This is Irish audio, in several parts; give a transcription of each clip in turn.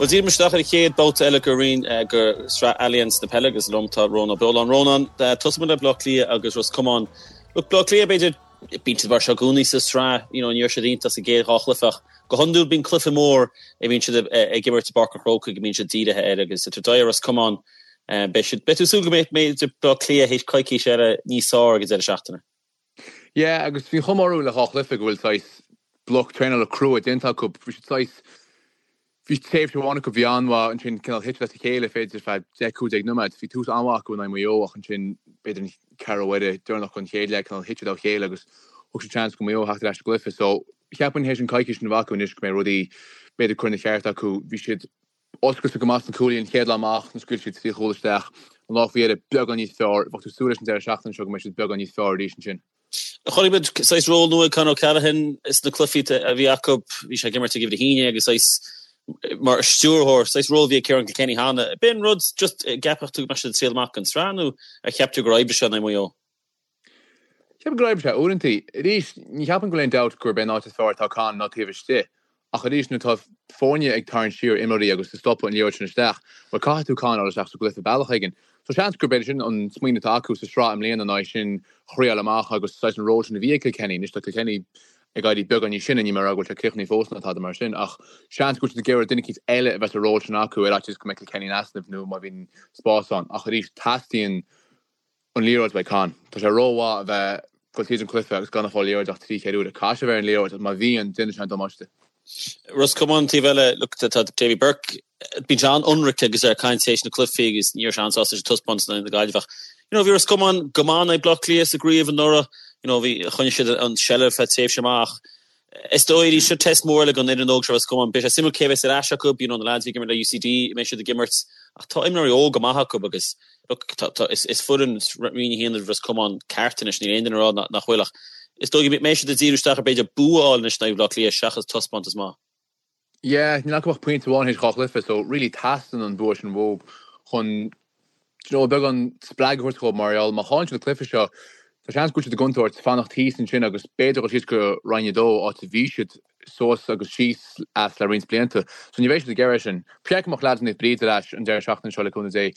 Bhuel, díreoidh muid isteach ar an chéad babhta eile de roinn de Shraith Allianz na Peile agus liom tá Rónán Ó Beoláin. Rónán, tosóidh muid le Bleá Cliath agus Ros Comáin. Look, Bleá Cliath, b'fhéidir, bíonn siad mar seo i gcónaí sa tsraith, you know, ní raibh siad iontach sa gcéad dhá chluiche ach go hiondúil bíonn cluiche mór a bhíonn siad ag imirt i bPáirc an Chrócaigh go mbíonn siad dírithe air agus idir Doire Ros Comáin, beidh siad, beidh tú ag súil go mbeidh, b'fhéidir Bleá Cliath théis coicís eile níos fearr ag an deireadh seachtaine. Yeah, agus bhí an chuma orthu le dhá chluiche go bhfuil saghas bloc traenála crua déanta acu. Bhí siad saghas, bhí tréimhse amháin acu a bhí an-mhaith, ansin cineál thit siad as a chéile b'fhéidir feadh 10, 15 nóiméad. Bhí tús an-mhaith acu in aghaidh Mhaigh Eo ach ansin b'fhéidir an ceathrú uaire deireanach den chéad leath cineál thit siad ó chéile agus thug siad seans go Maigh Eo theacht ar ais sa gcluiche. So cheapfainn théis an coicís sin a bheith acu anois go mbeidh rudaí b'fhéidir curtha ina cheart acu. Bhí siad Oscailte go maith sna cúlaithe an chéad lá amach, nuair a scaoil siad trí chúl isteach. An lá faoi dheireadh, beagán níos fearr. Bheadh tú ag súil leis an deireadh seachtaine seo go mbeidh siad beagán níos fearr arís ansin. Chonaic muid saghas ról nua ag Con O'Callaghan sna cluichí a bhí acu. Bhí sé ag imirt ag uimhir a haon déag agus saghas mar stiúrthóir, saghas ról a bhí ag Ciarán Kilkenny cheana. B'in rud just a gceapfadh tú go mbeadh siad ag triail amach don tsraith nó ar cheap tú gur oibrigh sé in aghaidh Mhaigh Eo? Ceapaim gur oibrigh sé uaireanta. Arís, ní cheapaim go bhfuil aon dabht gurb é an áit is fearr atá Con ná taobh istigh. Ach arís, nuair atá foirne ag tarraingt siar imreoirí agus ag stopadh an liathróid sin isteach, bhuel caithfidh tú Con a fháil isteach sa gcluiche bealach éigin. So seans gurb é sin an smaoineamh atá acu sa sraith i mbliana ná é sin a thriáil amach agus saghas an ról sin a bhí ag Kilkenny. Anois tá Kilkenny ag éirí beagán níos sine, níl mé ag rá go bhfuil sé críochnaithe fós ná tada mar sin, ach seans go bhfuil siad ag iarraidh duine eicínt eile a bheith sa ról sin acu ar fhaitíos go mbeidh Kilkenny in easnamh nó má bhíonn spás ann. Ach arís, teastaíonn an liathróid uaidh Con. Tá sé rómhaith a bheith ag dul tríd an cluiche agus gan ag fáil liathróid ach trí chéad uair. Caithfidh sé a bheith ar an liathróid agus má bhíonn, déanann sé an damáiste. Ros Comáin an taobh eile, look, tá Davy Burke, bíonn sé an-ionraic agus é ag caint théis na cluichí agus ní raibh sé an-sásta leis an taispeántas in aghaidh na Gaillimhe ach you know bhí Ros Comáin go maith in aghaidh Bleá Cliath sa gcraobh anuraidh, you know bhí, choinnigh siad an seilbh feadh tréimhse amach. Is dóigh arís, seo test mór eile don fhoireann óg seo Ros Comáin. Beidh sé suimiúil cé a bheas ar ais acu, you know na lads a bhí ag imirt le UCD, an mbeidh siad ag imirt ach tá imreoirí óga maith acu agus look tá tá is is foireann Roinn 1 Ros Comáin ceart anois, níl aon duine ag rá nach bhfuil ach is dóigh go mbeidh siad ag díriú isteach ar b'fhéidir bua a fháil anois in aghaidh Bhaile Átha Cliath seachas taispeántas maith. Yeah, níl acu ach pointe amháin théis dhá chluiche so really teastaíonn an bua sin uathu chun do you know, beagán spreagadh a thabhairt dhóibh mar gheall má chailleann siad an cluiche seo tá seans go bhfuil siad i gcontúirt fanacht thíos ansin agus b'fhéidir dul síos go Roinn 2 áit a bhí siad suas agus síos as le roinnt blianta. So ní bheidh siad ag iarraidh sin. Ba cheart go mbeadh leaids Naomh Bríd ar ais an deireadh seachtaine seo le cúnamh Dé.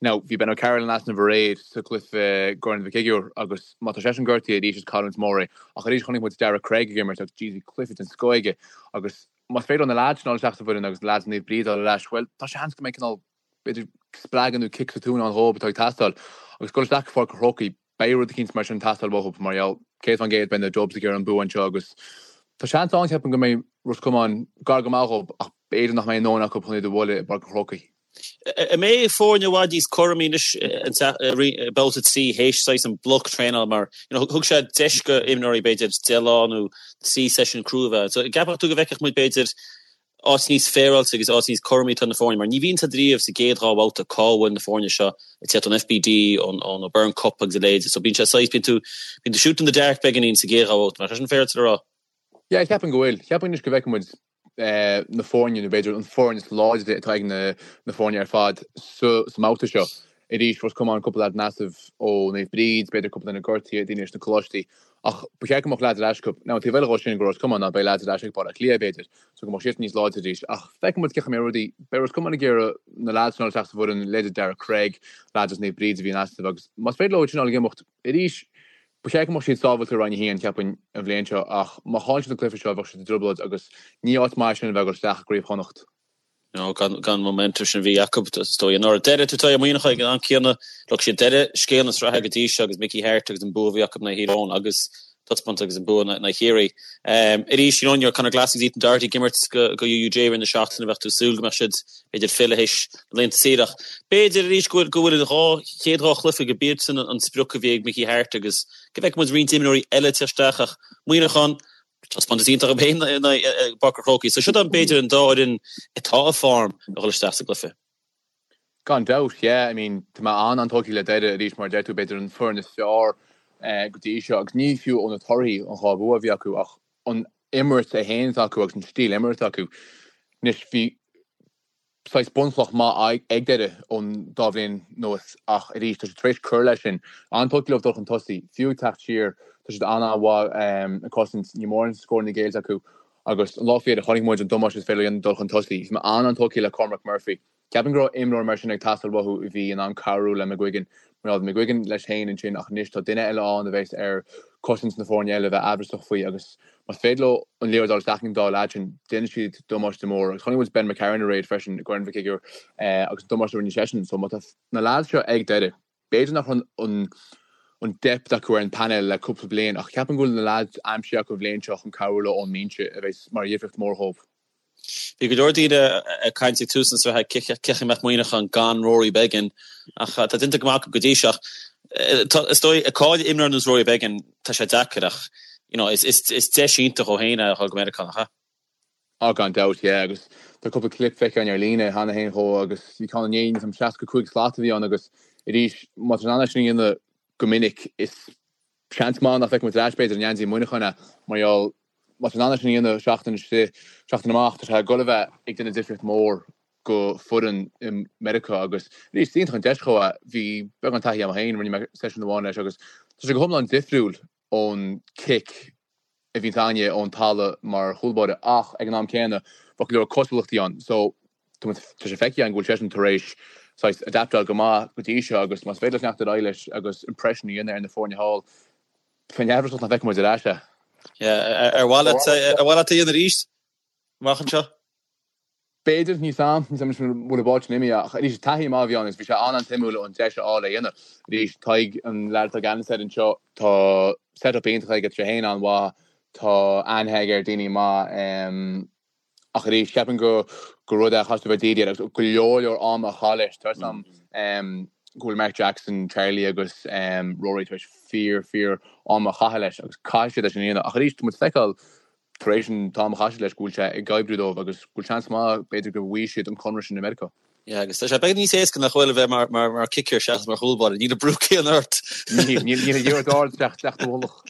Now bhí Ben O'Carroll in easnamh aréir sa gcluiche i gCorn Mhic Uidhir agus má tá seisean gortaithe arís is cailliúint mór é. Ach arís chonaic muid Darragh Craig ag imirt agus jeez bhí cluiche den scoth aige agus más féidir leo na leaids sin a fháil isteach sa bhfoireann agus na leaids Naomh Bríd a fháil ar ais bhuel tá seans go mbeidh cineál b'fhéidir spreagadh nó cic sa tóin ann dhóibh atá ag teastáil. Agus dul isteach go Pháirc an Chrócaigh, beidh rud eicínt mar sin ag teastáil uathu mar gheall 100% beidh na Dubs ag iarraidh an bua anseo agus tá seans ann ceapaim go mbeidh Ros Comáin gar go maith dhóibh ach b'fhéidir nach mbeidh a ndóthain acu chun iad a bhualadh i bPáirc an Chrócaigh. An mbeidh foirne i bhfad níos cúramaí anois i mbabhta 3 théis saghas an bloc traenála mar you know thug sé deis go imreoirí b'fhéidir 10 lá nó 3 seisiún crua a bheith ann. So an gceapfadh tú go bhfeicfeadh muid b'fhéidir áit níos féaráilte agus áit níos cúramaí atá na foirne mar ní bhíonn a fhios agat riamh sa gcéad dhá bhabhta cá bhfuil na foirne seo ag teacht ón FBD, ón O'Byrne Cup agus a leithéid so bíonn sé saghas, bíonn tú, bíonn tú shoot in the dark beagáinín sa gcéad dhá bhabhta, nach é sin féaráilte le rá? Yeah, ceapaim go bhfuil. Ceapaim anois go bhfeicfidh muid na foirne nó b'fhéidir an foireann is láidre atá ag na na foirne ar fad sa sa mbabhta seo. Arís, Ros Comáin, cúpla leaid in easnamh ó Naomh Bríd, b'fhéidir cúpla duine gortaithe, daoine leis na coláistí. Ach ba cheart go mbeadh leaids ar ais acu. Now, an taobh eile dhó sin go Ros Comáin ná beidh leaids ar ais ag Baile Átha Cliath, b'fhéidir, so go mbeadh siadsan níos láidre arís. Ach feicfidh muid cén chaoi a mbeidh rudaí. Beidh Ros Comáin ag iarraidh na leaids sin a fháil isteach sa bhfoireann, leithéid Darragh Craig, leaids as Naomh Bríd a bhí in easnamh agus más féidir leo iad sin a fháil ag imeacht arís, ba cheart go mbeadh siad sábháilte i Roinn 1, cheapfainn, an bhliain seo ach má chailleann siad an cluiche seo bheadh siad i dtrioblóid agus ní áit maith sin a bheith ag dul isteach i gCraobh Chonnacht. No, gan an momentum sin a bhí acu, is dóigh, anuraidh. Doire, tá Muineachán ag an am céanna, look, siad Doire scéal na sraithe go dtí seo agus Mickey Harte agus an bua a bhí acu in aghaidh Thír Eoghain agus taispeántas agus an bua in aghaidh Chiarraí. Arís, you know, ní raibh Conor Glass agus Ethan Doherty ag imirt go UUJ i rith na seachtaine, bheadh tú ag súil go mbeadh siad, b'fhéidir, fillthe théis na laethanta saoire ach b'fhéidir arís go bhfuil go bhfuil an dhá chéad dhá chluiche go b'iad sin an sprioc a bhí ag Mickey Harte agus go bhfeicfidh muid roinnt imreoirí eile ag teacht isteach ach Muineachán, Taispeántas iontach acu féin i bPáirc an Chrócaigh. So siod b'fhéidir an dá fhoireann atá i form a dhul isteach sa gcluiche. Gan dabht, yeah. I mean, tá mé an-an-tógtha le Doire arís, mar a deir tú, b'fhéidir an foireann is fearr go dtí seo agus ní fiú ó na torthaí, an dhá bhua a bhí acu, ach an imirt é féin atá acu agus an stíl imeartha acu. Anois, bhí saghas bunchloch maith ag Doire ón dá bhliain anuas ach arís tá siad tar éis cur leis sin. An-tógtha leo dul chun tosaigh, fiú ag teacht siar, tá siad an-an-mhaith ag cosaint, níl mórán scóranna géillte acu. Agus an lá faoi dheireadh chonaic muid an damáiste is féidir leo a dhéanamh dul chun tosaigh. Bhí mé an-an-tógtha le Cormac Murphy. Ceapaim go raibh imreoir mar sin ag teastáil uathu a bhí in ann cabhrú le McGuigan. Mar bhí McGuigan leis féin ansin ach anois tá duine eile ann a bheas ar cosaint na foirne eile a bheith aimhreasach faoi agus más féidir leo an liathróid a fháil isteach ag an dá leaid sin, déanfaidh siad damáiste mór. Agus chonaic muid Ben McCarron aréir freisin i gCorn Mhic Uidhir agus an damáiste a rinne seisean. So má tá na leaids seo ag Doire, b'fhéidir nach raibh an an depth acu ar an painéal le cúpla bliain ach ceapaim go bhfuil na leaids aimsithe acu an bhliain seo chun cabhrú leo ón mbinse a bheas mar dhifríocht mhór dhóibh. Bhí go leor daoine ag caint ag tús na sraithe cén chaoi a mbeadh Muineachán gan Rory Beggan ach tá déanta go maith acu go dtí seo. Is dóigh ag cailleadh imreoir ar nós Rory Beggan tá sé deacair ach you know is deis iontach dhó féin é a dhul go Meiriceá, nach ea? Á gan dabht, yeah agus tá cúpla clip feicthe againn ar líne cheana féin dhó agus bhí ceann inné níl a fhios agam 65 slat a bhí ann agus arís má tá sé in ann é sin a dhéanamh go minic is seans maith nach bhfeicfidh muid ar ais b'fhéidir i ngeansaí Mhuineacháin é mar gheall má tá sé in ann é sin a dhéanamh seachtain istigh, seachtain amach, tá sé ag dul a bheith ag déanamh difríocht mhór go foireann i Meiriceá agus arís is iontach an deis dhó é. Bhí beagán taithí agam féin, rinne mé seisiún amháin leis agus tá sé go hiomlán difriúil ón cic a bhíonns againne ón talamh mar chúlbáire ach ag an am céanna bheadh go leor cosúlachtaí ann so tá sé feicthe againn go bhfuil seisean tar éis saghas adaptáil go maith go dtí seo agus más féidir leis leanacht ar aghaidh leis agus impression a dhéanamh ar na foirne thall bheinn amhrasach nach bhfeicfidh muid ar ais é. Yeah, ar mhaith leat ar mhaith leat é a dhéanamh arís amach anseo? B'fhéidir, níl a fhios agam, níl a fhios agam an bhfuil an bád sin imithe, ach arís taithí maith a bhí ann agus bhí sé an-an-suimiúil an deis a fháil é a dhéanamh. Arís, Tadhg, an leaid atá i gceannas air anseo, tá set-up iontach aige, tá sé féin an-mhaith, tá aithne aige ar daoine maith, ach arís, ceapaim go gur rud é a chaithfidh tú a bheith dírithe air agus go leor leor ama a chaitheamh leis. Tá a fhios agam go bhfuil Mark Jackson, Charlie agus Rory tar éis fíor, fíor ama a chaitheamh leis agus caithfidh siad é sin a dhéanamh. Ach arís, tá muid ag feiceáil tar éis an t-am a chaith siad leis, go bhfuil sé ag oibriú dóibh agus go bhfuil seans maith, b'fhéidir, go bhfaighidh siad an conradh sin i Meiriceá. Yeah, agus tá sé beagán níos éasca nach bhfuil a bheith mar, mar, mar kicker seachas mar chúlbáire. Níl an brú céanna ort. Níl, níl, níl an liathróid ard isteach, isteach do mhullach.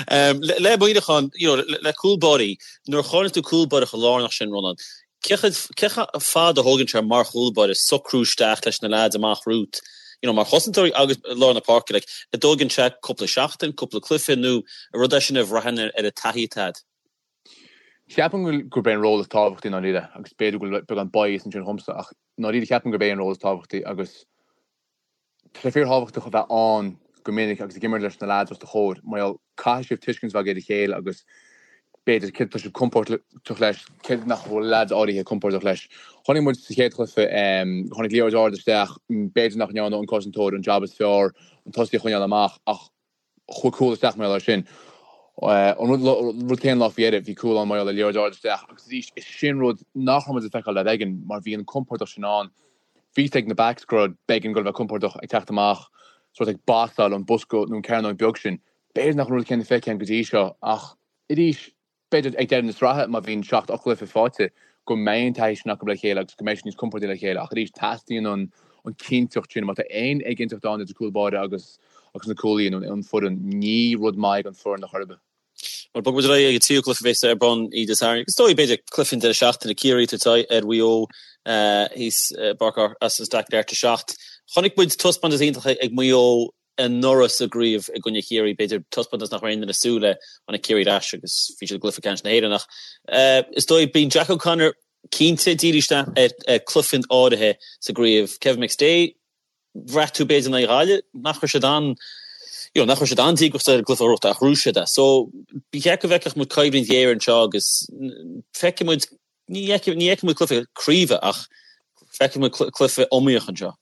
Um, le, le Muineachán, you know, le, le cúlbáirí, nuair a chailleann tú cúlbáire chomh lárnach sin, Rónán, Cé chomh fada a thógann sé mar chúlbáire socrú isteach leis na leaids amach romhat, you know, mar chosantóirí agus i lár na páirce, like, an dtógann sé cúpla seachtain, cúpla cluiche nó an rud é sin a bhraitheann ar an taithí atá agat? Ceapaim go bhfuil, gurb é an ról is tábhachtaí i ndáiríre agus b'fhéidir go bhfuil beagán bias ansin dhomsa ach i ndáiríre ceapaim gurb é an ról is tábhachtaí agus Tá sé fíorthábhachtach a bheith ann go minic agus ag imirt leis na leaids os do chomhair mar gheall caithfidh sibh tuiscint a bheith agaibh ar a chéile agus b'fhéidir céard atá sibh compordach leis, céard nach bhfuil leaids áirithe compordach leis. Chonaic muid sa chéad chluiche, tháinig liathróid ard isteach, b'fhéidir nach ndearna an cosantóir an jab is fearr an tosaí a choinneáil amach ach chuaigh cúl isteach mar gheall air sin. An rud céanna an lá faoi dheireadh, bhí cúl ann mar gheall ar liathróid ard isteach agus arís, is sin rud nach raibh muid ag feiceáil le Beggan mar bhí an compordach sin ann. Bhí fhios ag na backs go raibh Beggan ag dul a bheith compordach ag teacht amach, sórt ag basáil an bosca nó an cearnóg beag sin. B'fhéidir nach an rud céanna feicthe againn go dtí seo ach arís, B'fhéidir ag deireadh na sraithe, má bhíonn 7, 8 gcluiche faighte, go mbeidh an taithí sin acu le chéile agus go mbeidh siad níos compordaí le chéile. Ach arís, teastaíonn an chinnteacht sin. Má tá aon éiginnteacht ann idir cúl báire agus agus na cúlaithe nó an foireann, ní rud maith é don foireann ar chor ar bith. Bhuel, bogfaidh muid ar aghaidh ag an tríú cluiche a bheas ar bun Dé Sathairn. Agus is dóigh, b'fhéidir, cluiche an deireadh seachtaine, Ciarraí ag tabhairt aghaidh ar Mhaigh Eo thíos i bPáirc Austin Stack ag leathuair tar éis a 7. Chonaic muid taispeántas iontach ag Maigh Eo anuraidh sa gcraobh i gcoinne Chiarraí, b'fhéidir, taispeántas nach raibh aon duine ag súil le, tháinig Ciarraí ar ais agus bhí siad i gcluiche ceannais na hÉireann ach is dóigh, bíonn Jack O'Connor cinnte ag díriú isteach ar chluichí áirithe sa gcraobh. Kevin McStay, bhraith tú b'fhéidir in aghaidh Ghaillimh nach raibh siad an, you know, nach raibh siad an-díograiseach ar an gcluiche a ghnóthachtáil ach ghnóthaigh siad é. So, ba cheart go bhfeicfeadh muid coimhlint ghéar anseo agus feicfidh muid, ní fheicfidh muid cluiche craoibhe ach feicfidh muid cluiche iomaíoch anseo.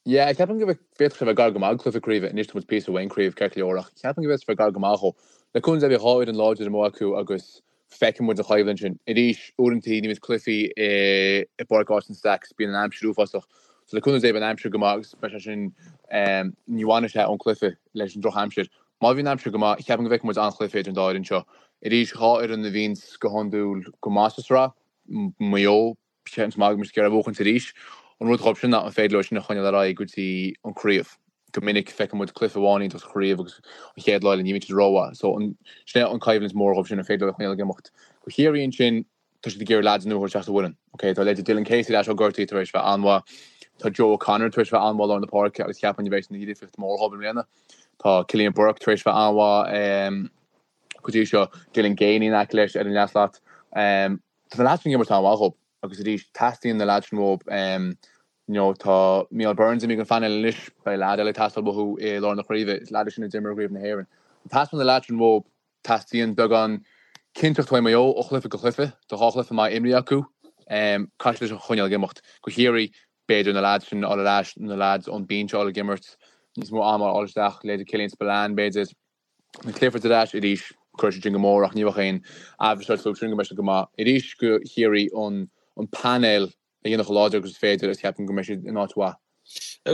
Yeah, ceapaim go bhféadfadh sé bheith gar go maith do chluiche craoibhe. Anois tá muid píosa uaidh an craobh, ceart go leor, ach ceapaim go bhféadfadh sé bheith gar go maith dhó. Le cúnamh Dé beidh dhá fhoireann láidir amuigh acu agus feicfidh muid an choimhlint sin. Arís, uaireanta ní bhíonn cluichí i bPáirc Austin Stacks, bíonn an aimsir uafásach. So le cúnamh Dé beidh an aimsir go maith agus beidh sé sin, ní bhainfidh sé ón cluiche leis an drochaimsir. Má bhíonn an aimsir go maith, ceapaim go bhfeicfidh muid an-chluiche idir an dá fhoireann seo. Arís, dhá fhoireann a bhíonns go hiondúil go maith sa sraith, Maigh Eo, Seans maith go mbeidh siad ag iarraidh a bhuachaint arís. An rud dhóibh sin ná an féidir leo sin a choinneáil ar aghaidh go dtí an craobh. Go minic feiceann muid cluiche amháin iontach sa chraobh agus an chéad lá eile ní bhíonn siad rómhaith. So an, sin é an coimhlint mhór dhóibh sin, an féidir leo a choinneáil ag imeacht. Do Chiarraí ansin, tá siad ag iarraidh leaids nua a thabhairt isteach sa bhfoireann. Ok, tá leithéidí Dylan Casey ar ais ó gortaí tar éis bheith an-mhaith. Tá Joe O'Connor tar éis bheith an-mhaith i lár na páirce agus cheapfainn a bheidh ina dhifríocht mhór dhóibh i mbliana. Tá Cillian Burke tar éis bheith an-mhaith. go dtí seo, Dylan Geaney in aice leis ar an leathshlat. Tá na leaids sin ag imirt an-mhaith dhób agus arís teastaíonn na leaids sin uathub. You know, tá Mícheál Burns imithe den phainéal anois, beidh leaid eile ag teastáil uathu i lár na craoibhe, is leaid é sin a d'imir i gCraobh na hÉireann. Teastaíonn na leaids sin uathub, teastaíonn beagán cinnteacht uaidh Maigh Eo ó chluiche go cluiche, tá 2 chluiche maith imrithe acu, caithfidh siad é sin a choinneáil ag imeacht. Go Chiarraí, b'fhéidir na leaids sin a fháil ar ais, na leaids ón binse a fháil ag imirt, níos mó ama a fháil isteach, leithéidí Killian Spillane b'fhéidir. Na Cliffords ar ais arís, cuirfidh siad sin go mór ach ní bheadh aon amhras ort fúthu sin go mbeidh siad go maith. Arís go Chiarraí an painéal a dhéanamh chomh láidir agus is féidir agus ceapaim go mbeidh siad in áit mhaith.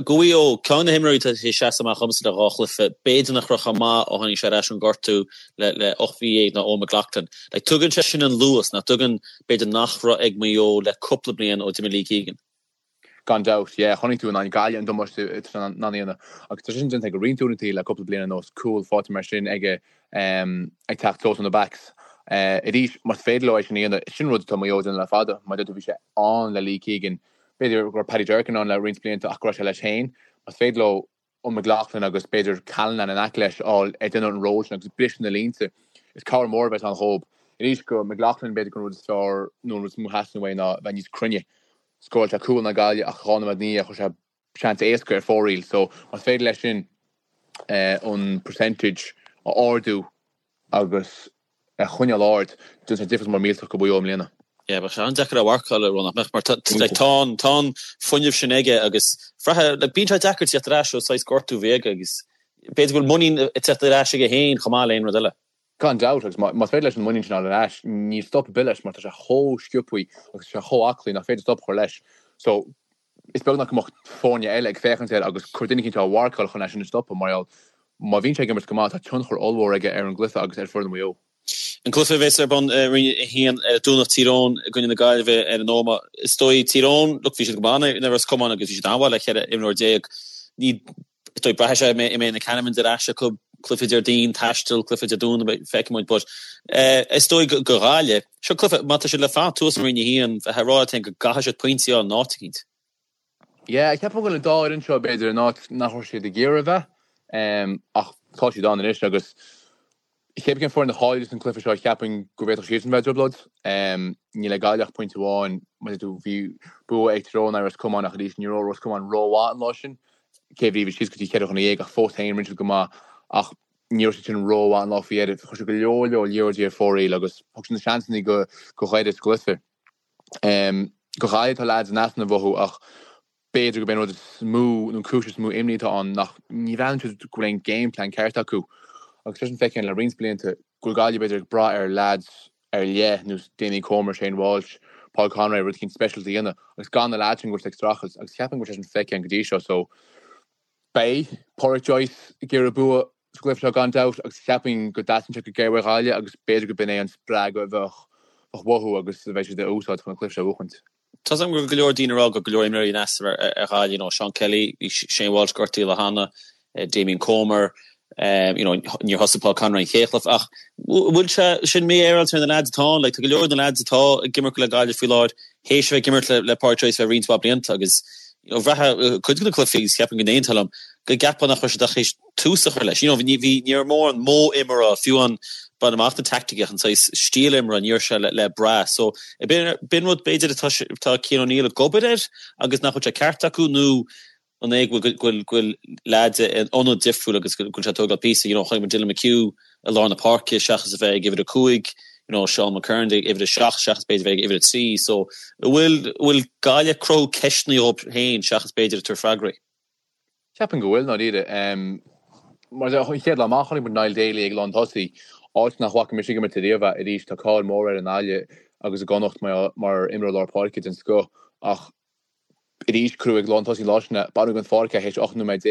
Go Mhaigh Eo, ceann de na himreoirí atá tar éis seasamh amach dhomsa le 2 chluiche, b'fhéidir nach raibh chomh maith ó tháinig sé ar ais ón ngortú le 18 mhí ná Eoghan McLaughlin. Like, tugann sé sin an luas nach dtugann, b'fhéidir nach raibh ag Maigh Eo le cúpla bliain ó d'imigh Lee Keegan. Gan dabht, yeah. Chonaic tú in aghaidh Gaillimh an damáiste atá sé in ann a dhéanamh. Agus tá sé sin déanta aige roinnt uaireanta le cúpla bliain anuas, cúl faighte mar sin aige ag teacht suas ó na backs. Arís, más féidir leo é sin a dhéanamh, sin rud atá Maigh Eo ag déanamh le fada. Mar a deir tú, bhí sé ann le Lee Keegan. B'fhéidir go raibh Paddy Durcan ann le roinnt blianta ach go raibh sé leis féin. Más féidir leo an McLaughlin agus b'fhéidir Callanan in aice leis a fháil ag déanamh an ról sin agus ag briseadh na línte. Is cabhair mór a bheas ann dhób. Arís go McLaughlin b'fhéidir gur an rud is fearr nó an rud is mó a theastaíonn uaidh ná bheith níos cruinne. Scóráil sé cúl in aghaidh Gaillimh ach 2 nóiméad ina dhiaidh chuir sé seans éasca ar fóraoil so más féidir leis sin an percentage a ardú agus a choinneáil ard, déanfaidh sé difríocht mór millteach go Mhaigh Eo i mbliana. Yeah, bheadh sé an-deacair a mharcáil, nach mbeadh, mar tá, like, tá an, tá an fuinneamh sin aige agus bhraithfeá, like, bíonn sé deacair teacht ar ais ó saghas gortú a bhí aige agus b'fhéidir go bhfuil muinín ag teacht ar ais aige féin chomh maith le aon rud eile. Gan dabht, agus más féidir leis an muinín sin a fháil ar ais, níl stop ar bith leis mar tá sé chomh sciobthaí agus tá sé chomh aclaí nach féidir stop a chur leis. So, is beag nach mbeadh foirne eile ag féachaint air agus cur duine eicínt á mharcáil chun é sin a stopadh mar gheall má bhíonn sé ag imirt go maith tá tionchar ollmhór aige ar an gcluiche agus ar foireann Mhaigh Eo. An cluiche a bheas ar bun i Roinn 1 ar an Domhnach, Tír Eoghain i gcoinne na Gaillimhe ar an Ómaigh. Is dóigh Tír Eoghain, look, bhí siad go maith in aghaidh Ros Comáin agus bhí siad an-mhaith le 14 imreoir. Ní is dóigh braithfidh sé an mbeidh na Canavan ar ais acu, cluiche Déardaoin, taisteal, cluiche Dé Domhnaigh, feicfidh muid but is dóigh go Ghaillimh, seo cluiche, má tá siad le fanacht thuas i Roinn 1, bheifeá ag rá leat féin go gcaithfidh siad pointí a fháil in áit eicínt. Yeah, ceapaim go bhfuil an dá fhoireann seo b'fhéidir in áit nach raibh siad ag iarraidh a bheith ach tá siad ann anois agus Cé bith cén foireann a chaillfeas an cluiche seo, cheapfainn go bhféadfadh siadsan bheith i dtrioblóid. Níl ag Gaillimh ach pointe amháin. Mar a deir tú, bhí bua ag Tyrone in aghaidh Ros Comáin ach arís ní raibh Ros Comáin rómhaith an lá sin. Cé bhí bhí síos go dtí 4 dhuine ach fós féin rinne siad go maith ach ní raibh siad sin rómhaith an lá faoi dheireadh. Chuir siad go leor leor liathróidí ar fóraoil agus thug siad na seansanna go Dhoire sa gcluiche. Go Gaillimh tá leaids in easnamh uathu ach B'fhéidir gurb é an rud is mó, nó an cúis is mó imní atá ann, nach ní bhreathnaíonn siad go bhfuil aon game plan ceart acu. Agus tá sin feicthe le roinnt blianta go bhfuil Gaillimh b'fhéidir ag brath ar leaids ar leith, nós Damien Comer, Shane Walsh, Paul Conroy, rud eicínt speisialta a dhéanamh, agus gan na leaids sin go bhfuil siad ag streachailt. Agus cheapfainn go bhfuil sé sin feicthe go dtí seo. So beidh Pádraic Joyce ag iarraidh bua sa gcluiche seo gan dabht agus cheapfainn go dteastaíonn sé go géar uaidh Ghaillimh agus b'fhéidir go b'in é an spreagadh a bheadh uathu agus a bheidh siad a úsáid chun an cluiche seo a bhuachaint. Tá 's agam go bhfuil go leor daoine ag rá go bhfuil go leor imreoirí in easnamh ar Ghaillimh, you know, Seán Kelly, bhí Shane Walsh gortaithe le hana, Damien Comer, you know, níor thosaigh Paul Conroy an chéad chluiche ach bhfuil sé sin mífhéaráilte ar na leaids atá ann, like, tá go leor de na leaids atá ag imirt le Gaillimh faoi láthair théis a bheith ag imirt le le Pádraic Joyce le roinnt mhaith blianta agus you know, bhraithfeá cuid de na cluichí agus cheapfainn go n-aontófá liom go gceapfá nach raibh siad ach théis tús a chur leis. You know, ní bhí, ní raibh mórán modh imeartha, fiú an bain amach na teaicticí ach an saghas stíl imeartha, ní raibh sé le, le brath. So, b'in rud b'fhéidir atá, atá Cian O'Neill ag obair air agus nach bhfuil sé ceart acu nó an é go bhfuil, go bhfuil, go bhfuil leaids in ionad difriúil agus go bhfuil sé ag tógáil píosa, you know, chonaic muid Dylan McHugh i lár na páirce seachas a bheith ag uimhir 5, you know, Seán McKernan ag uimhir 7 seachas b'fhéidir a bheith ag uimhir 3. So, an bhfuil, an bhfuil Gaillimh ag cruthú ceisteanna dhóibh féin seachas b'fhéidir ag tabhairt freagraí? Ceapaim go bhfuil, i ndáiríre. Mar an chéad lá amach chonaic muid Niall Daly ag lán tosaí, áit nach bhfaca mise ag imirt ariamh é. Arís, tá cáil mhór air i nGaillimh agus i gConnacht mar imreoir lár páirce den scoth ach arís cuireadh ag lán tosaí an lá sin é. Baineadh den pháirc é théis 18 nóiméad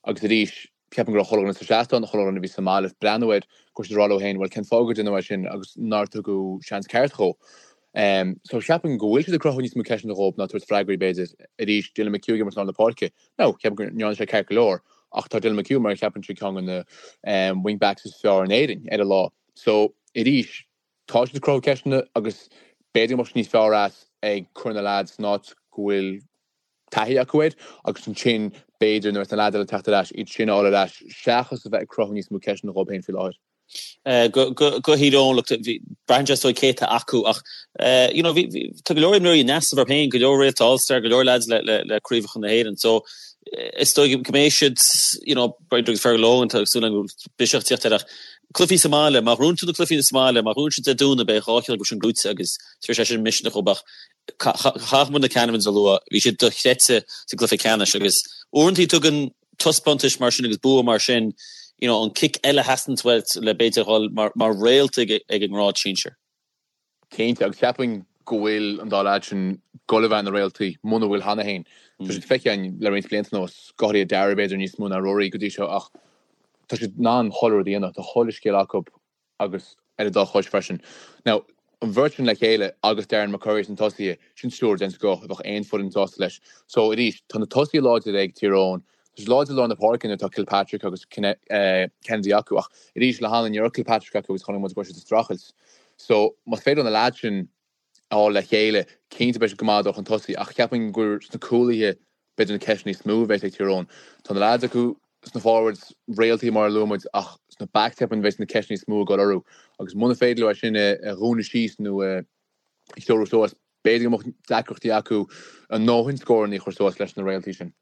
agus arís Ceapaim go raibh chuile dhuine sa seastán, chuile dhuine a bhí sa mbaile ag breathnú air, go raibh siad ag rá leo féin, bhuel cén fáth gur deineadh é sin agus nár tugadh seans ceart dhó. So ceapaim go bhfuil siad ag cruthú níos mó ceisteanna dhóibh ná tabhairt freagraí b'fhéidir. Arís, Dylan McHugh ag imirt i lár na páirce. Now, ceapaim go ndearna sé ceart go leor ach tá Dylan McHugh mar a cheapaimse ceann de na wing backs is fearr in Éirinn ar a lá. So arís, tá siad ag cruthú ceisteanna agus b'fhéidir go mbeadh siad níos fearr as ag cur na leaids san áit go bhfuil taithí acu air agus ansin b'fhéidir nuair atá na leaids eile ag teacht ar ais, iad sin a fháil ar ais seachas a bheith ag cruthú níos mó ceisteanna dhóibh féin faoi láthair. Go Thír Eoghain, look, braitheann sé is dóigh cé atá acu ach you know bhí tá go leor imreoirí ina seasamh orthu féin, go leor réalta All-Star, go leor lads le le le craobhacha na hÉireann. So is dóigh go mbeidh siad you know b'fhéidir agus Fergal Logan tá súil agam go bhfuil biseach ag teacht air ach cluichí sa mbaile, má ghnóthaíonn tú na cluichí sa mbaile, má ghnóthaíonn siad Dé Domhnaigh beidh 2 cheann acu sin gnóite agus tabharfaidh sé sin misneach dhóibh ach caithfidh muid na Canavans a lua, bhí siad dochreidte sa gcluiche ceannais agus uaireanta tugann taispeántais mar sin agus bua mar sin, you know, an cic eile a theastaíonn uait le b'fhéidir dhul mar, mar réalta ag, ag an ngrád sinsir. Cinnte, agus cheapfainn go bhfuil an dá leaid sin ag goil a bheith ina réaltaí, muna bhfuil cheana féin. Tá siad feicthe againn le roinnt blianta anuas, go háirithe Darragh b'fhéidir níos mó ná Rory go dtí seo ach tá siad in ann chuile rud a dhéanamh, tá chuile scil acu agus ar a dá chois freisin. Now, an bheirt sin le chéile agus Darren McCurry sna tosaithe, sin triúr den scoth a bheadh aon foireann sásta leis. So, arís, tá na tosaithe láidir ag Tír Eoghain, tá siad láidir i lár na páirce nuair atá Kilpatrick agus Kennedy acu ach arís le hanlann ní raibh Kilpatrick acu agus chonaic muid go raibh siad ag streachailt. So, más féidir leo na leaids sin a fháil le chéile, cinnte beidh siad go maith ag dul chun tosaigh ach cheapfainn gur sna cúlaithe b'fhéidir na ceisteanna níos mó a bheas ag Tír Eoghain. Tá na leaids acu sna forwards, réaltaí mar a luaigh muid ach sna backs cheapfainn bheas na ceisteanna níos mó ag dul orthu agus muna féidir leo é sin a dhúnadh síos nó a threorú suas, b'fhéidir go mbeadh deacrachtaí acu a ndóthain scóranna a chur suas leis na réaltaí sin.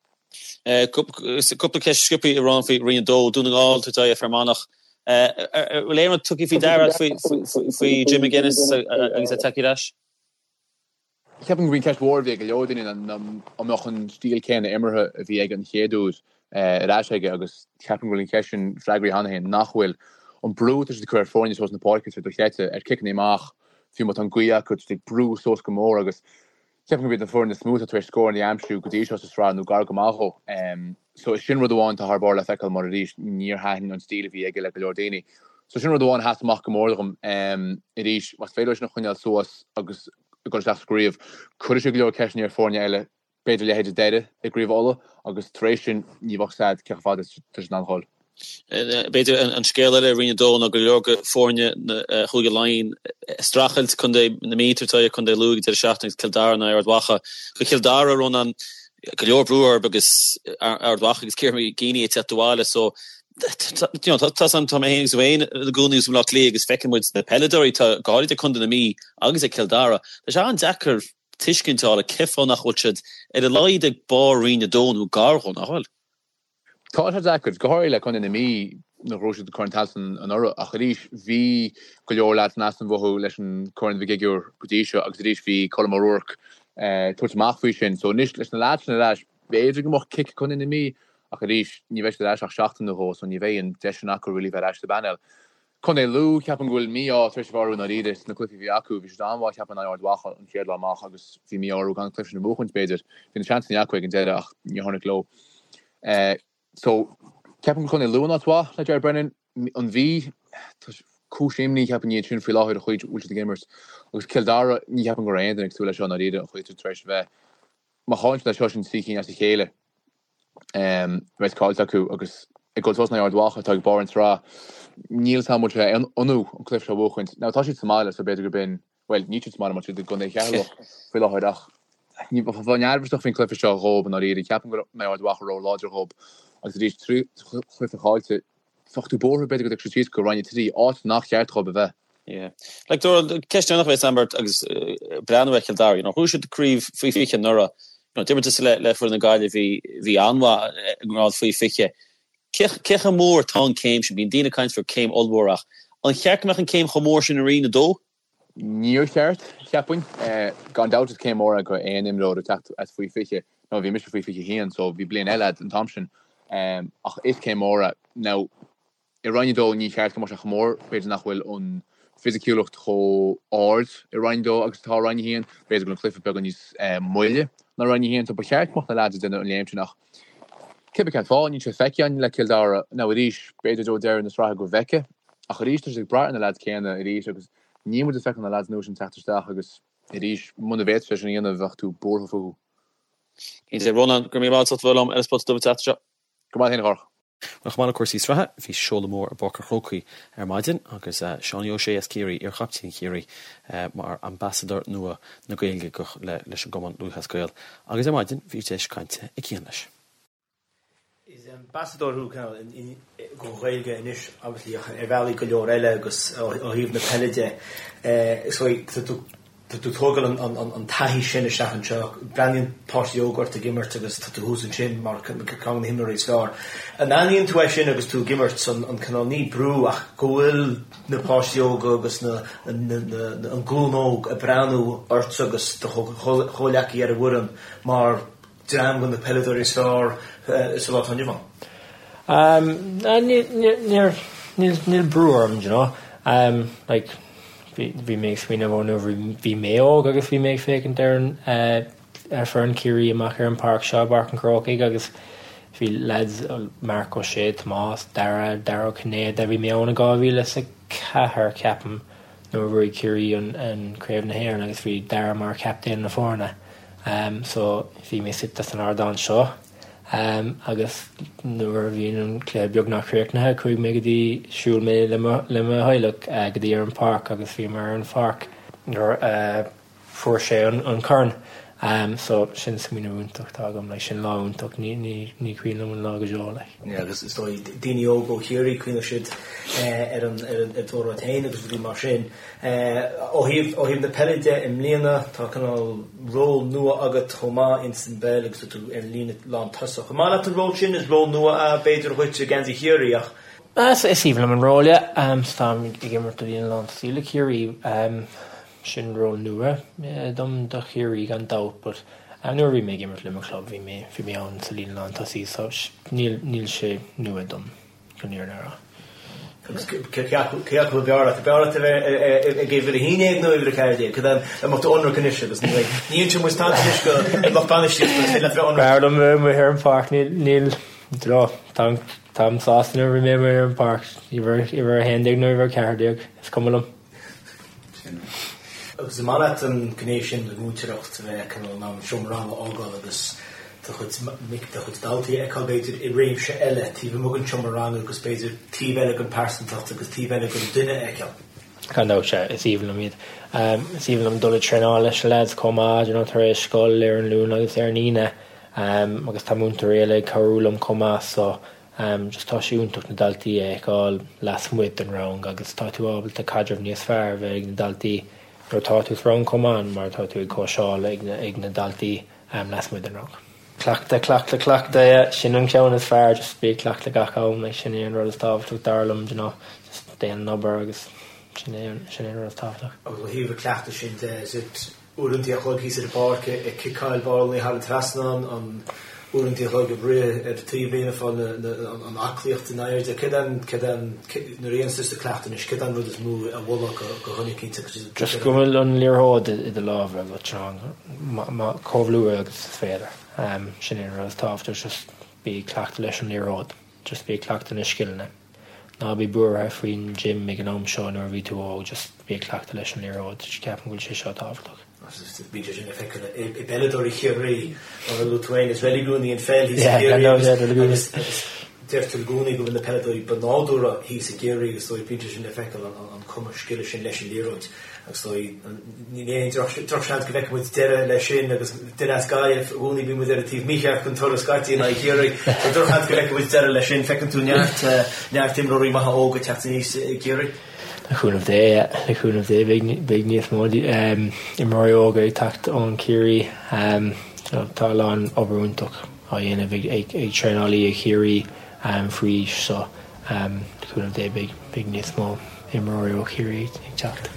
Cúpla ceist sciobtha a Rónáin faoi Roinn 2, Dún na nGall, tabhairt aghaidh ar Fear Manach. Bhfuil aon rud tugtha faoi deara faoi Jim McGuinness agus é tagtha ar ais? Ceapaim gurb í an cheist mhór a bhí ag go leor daoine ná an mbeadh an stíl céanna imeartha a bhí aige an chéad uair ar ais aige agus ceapaim go bhfuil an cheist sin freagraithe cheana féin nach bhfuil. An brú atá siad ag cur ar foirne suas na páirce, tá sé dochreidte, ar ciceanna amach, fiú má tá an ghaoth acu, tá siad ag brú suas go mór agus Ceapaim gurb iad an foireann is mó atá tar éis scóranna a aimsiú go dtí seo sa sraith nó gar go maith dhó. So is sin rud amháin atá thar barr le feiceáil mar arís níor thaitin an stíl a bhí aige le go leor daoine. So sin rud amháin a sheas amach go mór dhom. Arís, más féidir leo sin a choinneáil suas agus ag dul isteach sa gcraobh, cuirfidh sé go leor ceisteanna ar foirne eile, b'fhéidir leithéid Doire i gCraobh Uladh agus tar éis sin ní bheadh a fhios agat cé chomh fada is atá siad in ann a dhul. B'fhéidir an scéal eile i Roinn 2 ná go leor de foirne Chúige Laighean ag streachailt, Contae na Mí ag tabhairt aghaidh ar Chontae Lú ag an deireadh seachtaine agus Cill Dara in aghaidh Ard Mhacha. Do Chill Dara, Rónán, go leor brú orthu agus Ard Mhacha agus Ciara McGeeney ag teacht abhaile so you know, tá tá mé féin agus tú féin i gcónaí i mBaile Átha Cliath agus feiceann muid na peileadóirí atá go háirid ag Contae na Mí agus ag Cill Dara. Tá sé an-deacair tuiscint a fháil ar cén fáth nach bhfuil siad ar a laghad ag barr Roinn 2 nó gar dhó, nach bhfuil? Tá sé deacair, go háirithe le Contae na Mí nár ghnóthaigh siad Corn Tailteann anuraidh ach arís bhí go leor leaids in easnamh uathu leis an Corn Mhig Uidhir go dtí seo agus arís bhí Colm O'Rourke ag tabhairt amach faoi sin. So anois leis na leaids sin ar ais b'fhéidir go mbeadh cic ag Contae na Mí ach arís ní bheidh siad ar ais ach seachtain nó dhó so ní bheidh an deis sin acu really bheith ar ais sa bpainéal. Contae Lú, ceapaim go bhfuil mí-ádh tar éis a bheith orthu i ndáiríre sna cluichí a bhí acu. Bhí siad an-mhaith ceapaim in aghaidh Ard Mhacha an chéad lá amach agus bhí mí-ádh orthu gan an cluiche sin a bhuachaint b'fhéidir. Bhí na seansanna acu ag an deireadh ach níor tháinig leo. So, ceapaim go bhfuil Contae Lú in áit mhaith le Ger Brennan. An Mhí, tá cúis imní ceapaim iad sin faoi láthair an chaoi a bhfuil siad ag imirt. Agus Cill Dara, ní cheapaim go raibh aon duine ag súil leis seo i ndáiríre an chaoi atá tar éis a bheith. Má chailleann siad é seo sin trí cinn as a chéile. Beidh caillte acu agus ag dul suas in aghaidh Ard Mhacha atá ag barr an tsraith. Níl 's agam an bhfuil sé ionadh an cluiche seo a bhuachaint. Now tá siad sa mbaile so b'fhéidir gurb in, bhuel níl siad sa mbaile mar tá siad i gContae Cheatharlach faoi láthair ach bheinn neirbhíseach faoin cluiche seo dhóibh i ndáiríre. Ceapaim go mbeidh Ard Mhacha ró-láidir dhóibh agus arís trí chluiche caillte bheadh tú buartha b'fhéidir go dtiocfaidh siad síos go Roinn 3, áit nach cheart dhóibh a bheith. Yeah. Like, Dónal, ceist deireanach a bheas agam ort agus breathnú ar Chill Dara, you know, ghnóthaigh siad craobh faoi 20 anuraidh, you know, d'imir tusa le, le foireann na Gaillimhe bhí, bhí an-mhaith i ngrád faoi 20. Cé, cé chomh mór atá an céim sin? Bíonn daoine ag caint faoi céim ollmhór ach an cheart go mbeadh an céim chomh mór sin i Roinn 2? Níor cheart, cheapfainn. Gan dabht is céim mhór é do aon imreoir ag teacht as faoi 20. Now bhí mise faoi 21 so bhí bliain eile a'd an t-am sin. Ach is céim mhór é. Now i Roinn 2 ní cheart go mbeadh sé chomh mór, b'fhéidir nach bhfuil an fisiciúlacht chomh ard i Roinn 2 agus atá i Roinn 1. B'fhéidir go bhfuil an cluiche beagán níos moille ná Roinn 1 so ba cheart go mbeadh na leaids ag déanamh an léim sin ach cibé cén fáth níl sé feicthe againn le Cill Dara. Now arís b'fhéidir i dtreo deireadh na sraithe go bhfeicfidh. Ach arís tá siad ag brath ar na leaids céanna arís agus níl muid ag feiceáil na leaids nua sin teacht isteach agus arís muna bhféadfadh sé sin a dhéanamh bheadh tú buartha fúthu. Cinnte. Rónán, go raibh míle maith agat as ucht a bheith liom ar An Spota Dubh an tseachtain seo. Go raibh maith agat féin a Chárthach. Bhuel, chomh maith le cúrsaí sraithe, bhí seoladh mór i bPáirc an Chrócaigh ar maidin agus Seánie O'Shea as Ciarraí, iar-chaptaen Chiarraí, mar ambasadóir nua na Gaeilge leis an gCumann Lúthchleas Gael agus ar maidin bhí deis cainte ag Cian leis. Is. ambasadóir thú don Ghaeilge anois obviously ach ar bhealaí go leor eile agus ó thaobh na peile de is dóigh tá tú tá tú ag tógáil an taithí sin isteach anseo. Breathnaíonn páistí óga ort ag imirt agus tá tú thuas ansin mar ceann de na himreoirí is fearr. An aithníonn tú é sin agus tú ag imirt, an cineál, ní brú ach go bhfuil na páistí óga agus na an glúin óg ag breathnú ortsa agus do chomhleacaí ar an bhfoireann mar dream de na peileadóirí is fearr sa lá atá inniu ann? Níl brú orm, do you know. Like, bhí mé ag smaoineamh ó nuair bhí mé óg agus bhí mé ag féachaint ar an ar foireann Chiarraí amach ar an páirc seo i bPáirc an Chrócaigh agus bhí lads Marc Ó Sé, Tomás, Dara, Dara Ó Cinnéide, bhí mé ann i 2004 ceapaim nuair a bhuaigh Ciarraí an Craobh na hÉireann agus bhí Dara mar chaptaen na foirne. So bhí mé suite san ardán seo agus nuair a bhí an cluiche beagnach críochnaithe chuaigh mé go dtí, shiúil mé le mo le mo theaghlach go dtí ar an pháirc agus bhíomar ar an pháirc nuair a fuair sé an corn. So sin smaoineamh iontach atá agam, like sin lá iontach, ní ní ní cuimhin liom an lá go deo like. Yeah agus is dóigh daoine óga ó Chiarraí cuimhneoidh siad ar an ar an ar d'óráid féin agus rudaí mar sin. Ó thaobh ó thaobh na peile de i mbliana tá cineál ról nua agat chomh maith ins an bpeil agus tá tú ar an líne lán tosach. An maith leat an ról sin? Is ról nua é b'fhéidir dhuit i ngeansaí Chiarraí ach. Is aoibhinn liom an ról yeah. Táim ag imirt i líne lán tosaí le Ciarraí. Sin ról nua dom do Chiarraí gan dabht but nuair a bhí mé ag imirt le mo chlub bhí mé bhí mé ann sa líne lán tosaí so níl níl sé nua dom chun an fhírinne a rá. Agus cé acu cé acu ab fhearr leat? Ab fhearr leat a bheith ag uimhir 11 nó uimhir 14? Cad é an mbeadh tú ionraic anois agus ní bheidh ní inseoidh muid tada anois go lucht bainistíochta is féidir leat a bheith ionraic. B'fhearr liom bheith amuigh ar an pháirc níl níl do táim táim sásta nuair a bhí mé amuigh ar an pháirc uimhir uimhir 11 nó uimhir 14 is cuma liom. Agus an maith leat an ghné sin de mhúinteoireacht, a bheith cineál in ann an seomra ranga a fhágáil agus do chuid mic, do chuid daltaí a fheiceáil b'fhéidir i réimse eile taobh amuigh den seomra ranga agus b'fhéidir taobh eile den pearsantacht agus taobh eile den duine a fheiceáil? Gan dabht, sea, is aoibhinn liom iad. Is aoibhinn liom dul ag traenáil leis na lads chomh maith, you know, tar éis scoil ar an Luan agus ar an Aoine agus tá múinteoirí eile ag cabhrú liom chomh maith so Just tá sé iontach na daltaí a fheiceáil lasmuigh den rang agus tá tú ábalta caidreamh níos fearr a bheith ag na daltaí nuair atá tú sa rang chomh maith mar tá tú ag cóitseáil ag ag na daltaí lasmuigh den rang. Cleachtadh, cleachtadh, cleachtadh, yeah, sin an ceann is fearr, just bí ag cleachtadh gach am, like sin é an rud is tábhachtach dar liom, do you know, just déan an obair agus sin é sin é an rud is tábhachtach. Agus ó thaobh an cleachtadh sin de, is it uaireanta a chloig thíos ar an bpáirc ag ciceáil ballalaí thar an trasnán, an uaireanta a chloig ag rith ar an taobhlíne ag fáil an aclaíocht in airde. Céard é an, céard é an, nuair a dhéanann tusa cleachtadh anois, céard é an rud is mó a mholfá do dhuine eicínt agus iad. Just go bhfuil an liathróid i do lámha agat, chomh luath agus is féidir. Sin é an rud is tábhachtach, just bí ag cleachtadh leis an liathróid, just bí ag cleachtadh na scileanna. Ná bí buartha faoin gym ag an am seo nuair a bhí tú óg, just bí ag cleachtadh leis an liathróid, ceapaim go bhfuil sé seo tábhachtach. Bíonn sé sin le feiceáil i bpeileadóirí Chiarraí, mar a luaigh tú féin, is reiligiún í an pheil thíos i gCiarraí agus deirtear i gcónaí go bhfuil na peileadóirí ba nádúrtha thíos i gCiarraí agus is dóigh bíonn sé sin le feiceáil an cumas scile sin leis an liathróid. Agus is dóigh, ní aon drochsheans go bhfeicfidh muid deireadh leis sin agus duine as Gaillimh, i gcónaí bíonn muid ar an taobh mícheart den turas scaití in aghaidh Chiarraí. So drochsheans go bhfeicfidh muid deireadh leis sin. Feiceann tú neart, neart imreoirí maithe óga ag teacht aníos i gCiarraí. Le cúnamh Dé, le cúnamh Dé beidh, beidh níos mó imreoirí óga ag teacht ón Chiarraí. Tá a lán obair iontach á dhéanamh ag, ag, ag traenálaí ag Chiarraí faoi aois so le cúnamh Dé beidh, beidh níos mó imreoirí ó Chiarraí ag teacht.